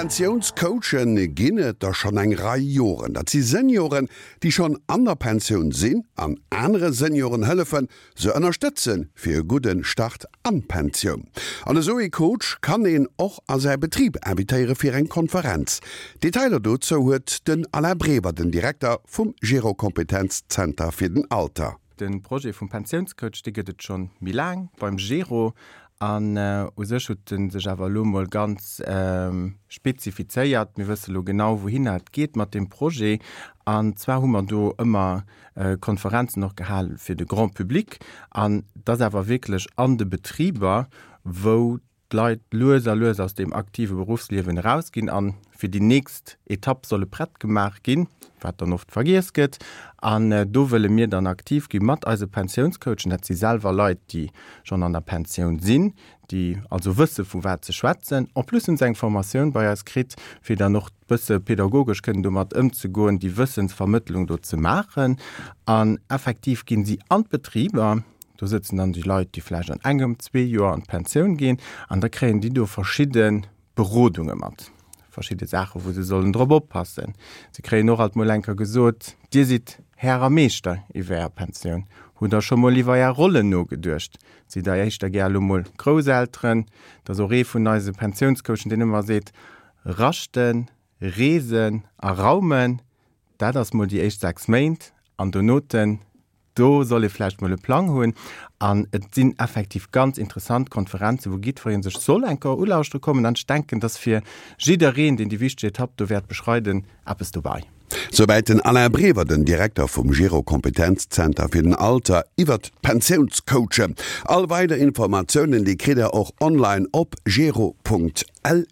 Pensiounscoache ginn et der schonn eng Rei Joren. Dat si Senioren, déi schonn an der Pensioun sinn an anere Senioren hëllefen, se ënnerstëtzen, fir e gudde Start an d'Pensioun. An esou ee Coach kann een och a säi Betrib invitéiere fir eng Konferenz. Detailer dozou huet den Alain Brever, den Direkter vum Gero-Kompetenzzenter fir den Alter. De Projet vum Pensiounscoach, dee gëtt et schonn méi laang beim Gero. An u sech huet e sech awer elo mol ganz spezifizéiert. Mir wësse lo genau, wouhinner et geet mat deem Projet. An zwar hu mer do ëmmer Konferenzen och gehal fir de Grand public. An et ass awer wierklech an de Betriber, wou d'Leit lues a lues aus deem aktive Beruffsliewen erausginn an fir déi nächst Etapp solle prett gemaach ginn, wat dann oft vergiess gëtt. An do wëlle mir dann aktiv gi mat eise Pensiounscoachen. Dat si selwer Leit, déi schonn an der Pensioun sinn, déi also wësse vu wat se schwätzen. En plus hunn se eng Formatioun bei eis kritt, fir dann och bësse pedagogesch kënnen domat ëmzegoen, déi Wëssensvermëttlung do ze maachen. An effektiv ginn si an d'Betriber. Do sëtzen dann déi Leit, déi vläicht an engem, zwee Joer an d'Pensioun ginn, an da kréien déi do verschidde Berodunge mat, verschidde Saachen, wou se sollen drop oppassen. Se kréien och alt mol eng Kéier gesot, Dir sidd Här a Meeschter iwwer Är Pensioun. Hutt Der scho mol iwwer Är Rollen nogeduecht? Sidd Der éischter gär elo mol Grousselteren? Dat ass och ee vun eise Pensiounscoachen, deen ëmmer seet, Raschten, Reesen a Raumen, dat ass mol déi éischt 6 Méint, an donoten Do soll ee vläicht mol e Plang hunn. An et sinn effektiv ganz interessant Konferenzen, wou jiddweree sech soll eng Kéier ulauschtere kommen. An ech denken, dass fir jiddereen, deen déi wichteg Etapp do wäert beschreiden, eppes dobei. Souwäit den Alain Brever, den Direkter vum Gero Kompetenzzenter fir den Alter, iwwert d'Pensiounscoachen. All weider Informatiounen, déi kritt der och online op gero.lu.